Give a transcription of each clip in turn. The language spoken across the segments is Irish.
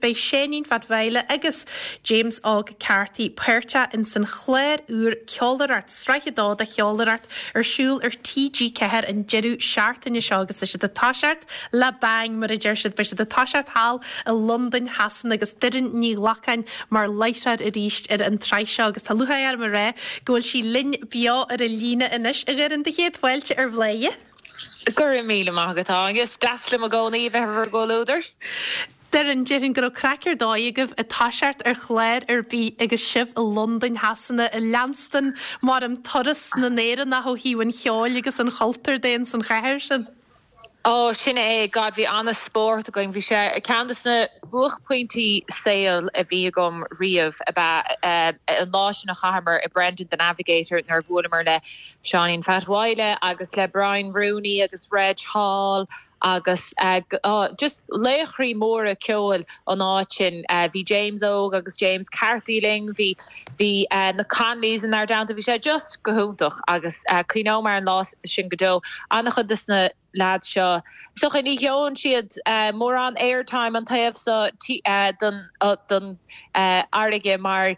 Beidh Seáinín Phat Mhaidhle agus James Óg Carthy páirteach ins an chlár úr Ceolaireacht, Sraith 2 de Cheolaireacht, ar siúl ar TG4 an deireadh seachtaine seo agus tá siad ag toiseacht le bang, mar a deir siad. Beidh siad ag toiseacht thall i Londain Shasana agus Doireann Ní Ghlacáin mar láithreoir arís ar an tsraith seo agus tá lúcháir orm a rá go bhfuil sí linn beo ar an líne anois. A Dhoireann, do chéad fáilte ar Bhladhaire. Go raibh míle maith agat, Áine. Is deas liom i gcónaí a bheith ar bhur gcomhluadar. Doireann, déarfainn go raibh craic ar dóigh agaibh ag toiseacht ar chlár ar bith agus sibh i Londain Shasana ag leanstan mar an turas na nÉireannach ó thaobh an cheoil agus an chultúir de ins an chathair sin. Ó, sin é, God, bhí an-spórt againn. Bhí sé ceann de na buaicphointí saoil a bhí agam riamh ab ea an lá sin a chaitheamar i Brendan the Navigator nuair a bhuaileamar le Seáinín Phat Mhaidhle agus le Brian Rooney agus Reg Hall agus just laochraí móra ceoil an áit sin. Bhí James Óg agus James Carthy linn, bhí bhí na Connollys inár dteannta, bhí sé just go hiontach agus cuimhneoidh mé ar an lá sin go deo. An-chuid des na leaids seo, is dócha, ní gheobhann siad mórán airtime an taobh so den fharraige mar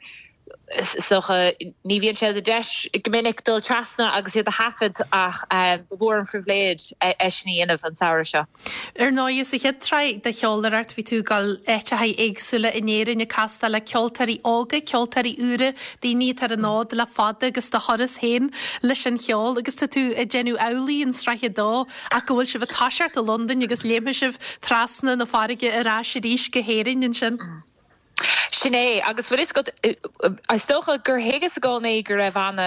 is dócha, ní bhíonn sé de deis go minic dul trasna agus iad a thaifead ach ba mhór an phribhléid é sin a dhéanamh an samhradh seo. Ar ndóigh, sa chéad tsraith de Cheolaireacht bhí tú ag dul áiteacha éagsúla in Éirinn ag castáil le ceoltóirí óga, ceoltóirí úra, daoine atá ar an fhód le fada agus do thuras féin leis an cheol agus tá tú ag déanamh amhlaidh in sraith a dó ach go bhfuil sibh ag toiseacht i Londain agus léimfidh sibh trasna na farraige ar ais arís go hÉirinn ansin. Sin é, agus bhfuil fhios agat, is dócha gur thuigeas i gcónaí go raibh ana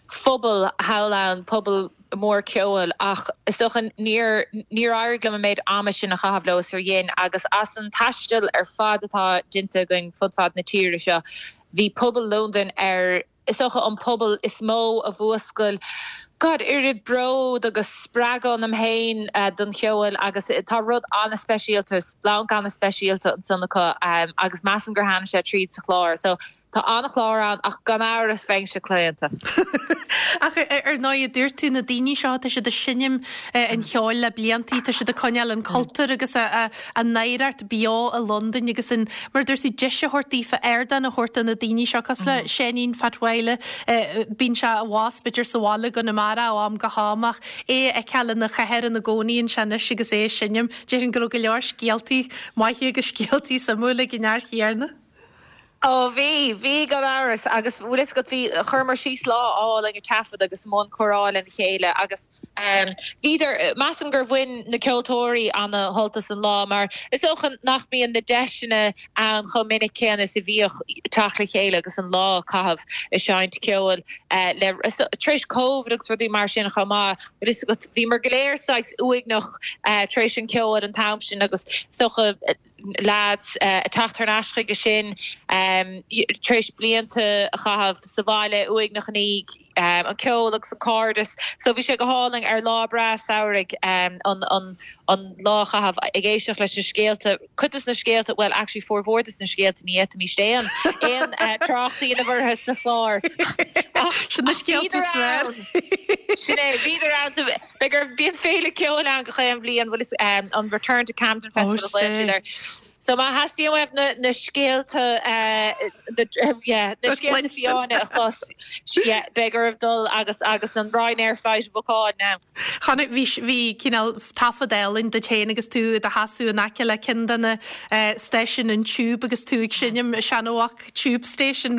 phobal thall ann, pobal mór ceoil, ach is dócha níor, níor éirigh liom an méid ama sin a chaitheamh leo is ar dhein, agus as an taisteal ar fad atá déanta againn fud fad na tíre seo, bhí pobal Londain ar. is dócha, an pobal is mó a mhúscail, God, oiread bród agus spreagadh ionam féin don cheol agus tá rud an-speisialta, splanc an-speisialta ansan acu agus measaim gur tháinig sé tríd sa chlár. So tá an-chlár ann ach gan amhras bheinnse claonta. Ach ar ndóigh, a dúirt tú, na daoine seo, tá siad ag seinm an cheoil le bliantaí, tá siad ag coinneáil an cultúr agus a n-oidhreacht beo i Londain agus an, mar a dúirt tú, deis a thabhairt daofa, ardán a thabhairt do na daoine seo, cosúil le Seáinín Phat Mhaidhle, bíonn sé abhus b'fhéidir sa bhaile i gConamara ó am go ham ach é a fheiceáil ina chathair ina gcónaíonn sé anois agus é ag seinm, déarfainn go raibh go leor scéaltaí maithe agus scéaltaí suimiúla ag an fhear chéanna. Ó bhí, bhí gan amhras agus bhfuil fhios agat bhí, chuireamar síos lá álainn ag taifead agus i mbun comhrá lena chéile agus bhíodar, measaim gur bhain na ceoltóirí ana shult as an lá mar is dócha nach mbíonn na deiseanna ann chomh minic céanna is a bhíodh teacht le chéile agus an lá a chaitheamh ag seinnt ceoil le, tar éis Covid agus rudaí mar sin chomh maith, bhfuil fhios agat, bhíomar go léir saghas uaigneach tar éis an cheoil an t-am sin agus is dócha, leaids ag teacht thar n-ais chuige sin tar éis blianta a chaitheamh sa bhaile uaigneach i ndiaidh an ceol agus an cairdeas. So bhí sé go hálainn ar lá breá samhraidh an an lá a chaitheamh ag éisteacht leis na scéalta, cuid des na scéalta, bhuel actually formhór des na scéalta ní fhéadfaimis aon aon trácht a dhéanamh orthu sa chlár. Ach Sin na scéalta is fearr. Sin é, bhíodar ann. Beidh ar, bíonn féile ceoil ann gach aon bhliain, bhfuil fhios, an Return to Camden Festival a ghlaonn siad air. So má theastaíonn uaibh na, na scéalta, na, yeah, na scéalta fiáine a chlos, yeah, beidh oraibh dul agus, agus an Ryanair flight a bhookáil now. Chonaic, bhí, bhí cineál taifead álainn duit féin agus tú i do sheasamh in aice le ceann de na stáisiúin an Tube agus tú ag seinm Seanamhac Tube Station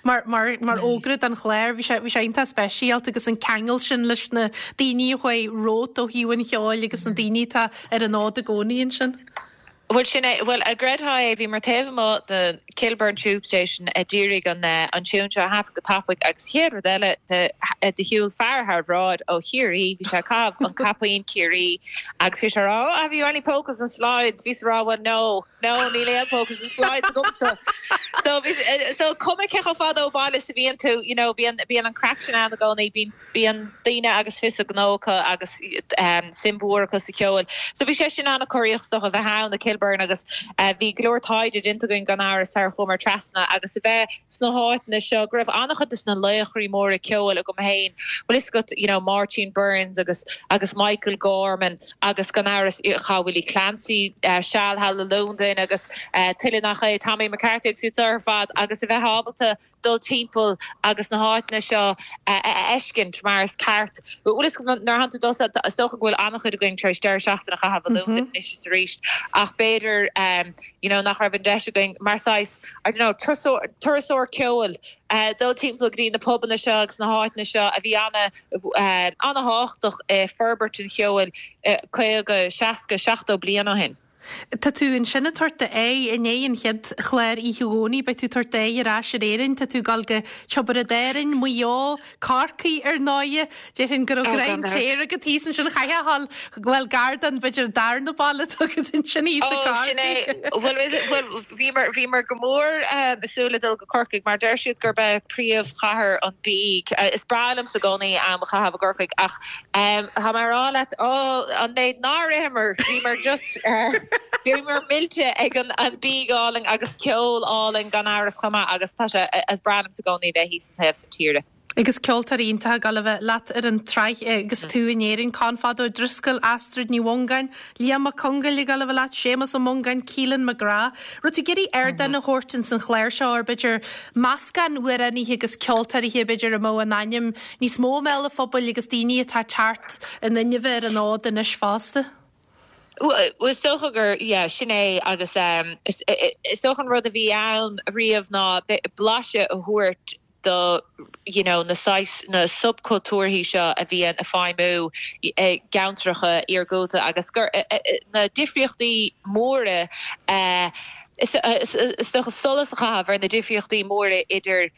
mar mar fhógra don chlár. Bhí sé bhí sé iontach speisialta agus an ceangal sin leis na daoine a chuaigh romhat ó thaobh an cheoil agus na daoine atá ar an fhód i gcónaí ansin. Bhuel sin é, bhuel an gcreidfeá é, bhíomar taobh amuigh de Kilburn Tube Station a d'iarraidh an an tiún seo a thaifead go tapaidh agus chéad rud eile de de shiúil fear thar bhráid ó Chiarraí, bhí sé ag caitheamh an caipín Ciarraí agus bhí sé ag rá oh have you any polkas and slides? Bhíos ag rá well no. No, níl aon polkas and slides agamsa. So bhí, so cuma cé chomh fada ó bhaile is a bhíonn tú, you know, bíonn, bíonn an craic sin ann i gcónaí, bíonn, bíonn daoine agus fios a ngnó acu agus suim mhór acu sa cheol. So bhí sé sin an-chorraíoch is dócha a bheith ann i Kilburn agus bhí go leor taighde déanta againn gan amhras sar a chuamar trasna agus a bheith sna háiteanna seo go raibh an-chuid de na laochraí móra ceoil agam féin, bhfuil fhios agat, you know, Máirtín Byrnes agus agus Michael Gorman agus gan amhras chaith Willie Clancy seal thall i Londain agus tuilleadh nach é, Tommy McCarthy agus iad seo ar fad agus a bheith ábalta dul timpeall agus na háiteanna seo a fheiscint mar is ceart. Bhfuil fhios agat nuair atánn tú dul is dócha go bhfuil an-chuid againn tar éis deireadh seachtaine a chaitheamh i Londain anois is arís ach b'fhéidir you know nach raibh an deis againn mar saghas I don't know turasóir ceoil dul timpeall go dtí na pubanna seo agus na háiteanna seo a bhí an-thábhachtach i forbairt an cheoil 50, 60, 70 bliain ó shin. Tá tú ansin ag tabhairt d'aghaidh i ndiaidh an chéad chlár oíche Dhomhnaigh, beidh tú ag tabhairt d'aghaidh ar ais ar Éirinn, tá tú ag dul go Tiobraid Árainn, Maigh Eo, Corcaigh ar ndóighe. Déarfainn go raibh greim téir agat thíos ansin, chaithfeá a dhul, bhuel gar don, b'fhéidir an darna baile atá agat ansin thíos i Ó, sin é. Bhuel, bhuel, bhíomar, bhíomar go mór ag súil le dul go Corcaigh mar deir siad gurb é príomhchathair an bhídh. Is breá liomsa i gcónaí am a chaitheamh i gCorcaigh ach tá mé a rá leat, ó, an méid nár itheamar, bhíomar just, bhíomar millte ag an bídh álainn agus ceol álainn gan amhras chomh maith agus tá sé, is breá liomsa i gcónaí bheith thíos an taobh san tíre. Agus ceoltóirí iontacha ag dul a bheith leat ar an tsraith agus tú in Éirinn, Conn Fada Ó Drisceoil, Astrid Ní Mhongáin, Liam Mac Congáil ag dul a bheith leat, Séamus Ó Mongáin, Keelan McGrath. Raibh tú ag iarraidh ardán a thabhairt ins an chlár seo ar b'fhéidir meascán amhránaithe agus ceoltóirithe b'fhéidir a mbeadh a n-ainm níos mó i mbéal an phobail agus daoine atá ag teacht in inmhe ar an fhód anois fosta? Bhuel, is dócha gur, yeah, sin é agus is dócha an rud a bhí ann riamh ná blaiseadh a thabhairt do you know na saghas, na subchultúrthaí seo a bhíonn ag feidhmiú i gceantracha iargúlta agus gur na difríochtaí móra is dócha solas a chaitheamh ar na difríochtaí móra idir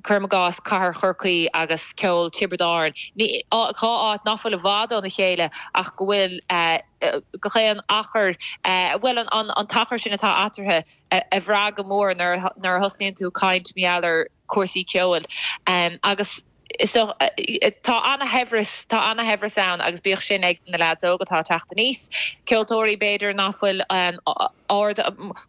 cuirim i gcás cathair Chorcaí agus ceol Tiobraid Árann, dhá áit nach bhfuil i bhfad óna chéile ach go bhfuil gach aon achar, bhuel an t-achar sin atá eatarthu a bhrath go mór nuair a thosnaíonn tú ag caint mar gheall ar chúrsaí ceoil agus tá ana-shaibhreas, tá ana-shaibhreas ann agus bíodh sin ag na leaids óga atá ag teacht aníos, ceoltóirí b'fhéidir nach bhfuil ard,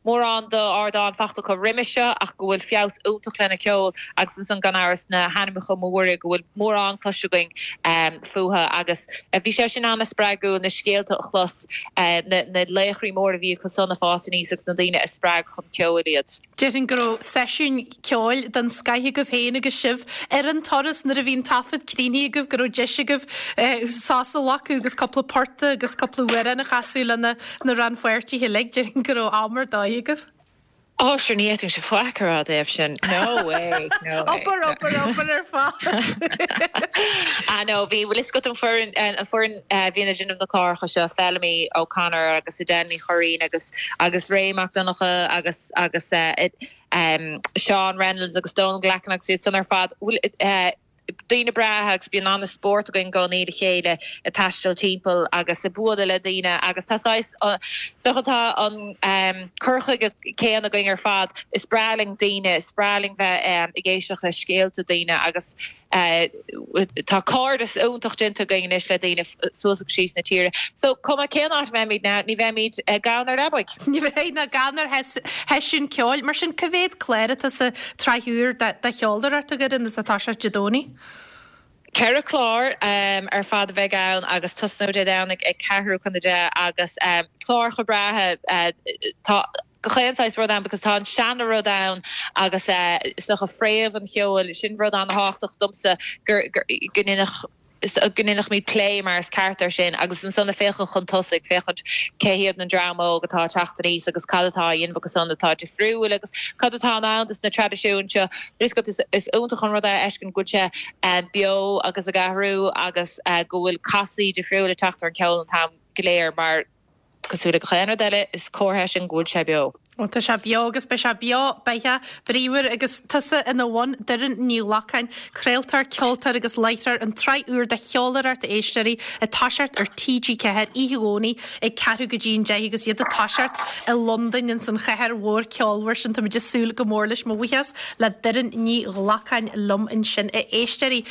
mórán d'ardán fachta acu roimis seo ach go bhfuil feabhas iontach lena ceol agus ansan gan amhras na hainmneacha móra go bhfuil mórán cloiste againn fúthu agus bhí sé sin ana-spreagúil na scéalta a chlos, na laochraí móra a bhí acu san ag fás aníos agus na daoine a spreag chun ceoil iad. Déarfainn go raibh seisiún ceoil den scoith agaibh féin agus sibh ar an turas nuair a bhí an taifead críochnaithe agaibh, go raibh deis agaibh sos a ghlacadh agus cúpla port agus cúpla amhrán a chasadh le na rannpháirtithe uilig. Déarfainn go raibh am ar dóigh agaibh. Ó, sure, ní fhéadfainnse faic a rá i dtaobh sin. No way, no way. Obair, obair, obair ar fad. Ah no, bhí, bhfuil fhios agat an foireann, an foireann a bhíonn ag déanamh na cláracha seo, Feilimí O'Connor agus Edel Ní Churraoin agus agus Ray Mac Donncha agus agus Seán Reynolds agus Donal Glackin agus iad san ar fad, bhuel daoine breátha agus bíonn an-spórt againn i gcónaí le chéile ag taisteal timpeall agus ag bualadh le daoine agus tá saghas, is dócha tá an cur chuige céanna againn ar fad, is breá linn daoine, is breá linn bheith ag éisteacht le scéalta daoine agus Tá cairdeas iontach déanta againn anois le daoine suas agus síos na tíre. So, cuma cén áit a mbeimid now, ní bheimid gann ar leabaidh. Ní bheidh ná gann ar sheisiún ceoil. Mar sin, cá mhéad clár atá sa tsraith úr de cheolaireacht agaibh atá ag toiseacht Dé Domhnaigh? Ceithre chlár ar fad a bheidh ann agus tosnóidh Dé Domhnaigh ag ceathrú chun a deich agus cláracha breátha. Tá. gach aon saghas rud ann because tá an seana-rud ann agus is dócha fréamh an cheoil, sin rud an-thábhachtach domsa gur go ndéanfadh go ndéanfaimid plé mar is ceart air sin agus ansan ag féachaint chun tosaigh, féachaint cé hiad an dream óg atá ag teacht aníos agus cad atá á dhéanamh acu san atá difriúil agus cad atá in ann dos na traidisiúin seo. Is is iontach an rud é a fheiscint go bhfuil sé beo agus ag athrú agus go bhfuil casadh difriúil ag teacht ar an cheol an t-am go léir mar. Cosúil le gach aon rud eile, is comhartha é sin go bhfuil sé beo. Ó tá sé beo agus beidh sé beo beatha, bríomhar agus tusa ina bhun, Doireann Ní Ghlacáin, craoltóir, ceoltóir agus láithreoir, an tsraith úr de Cheoláireacht a éisteoirí ag toiseacht ar TG4 oíche Dhomhnaigh ag ceathrú go dtí an 10 agus iad ag toiseacht i Londain ins an chathair mhór ceolmhar sin. Táimid ag súil go mór leis. Mo bhuíochas le Doireann Ní Ghlacáin liom ansin a éisteoirí.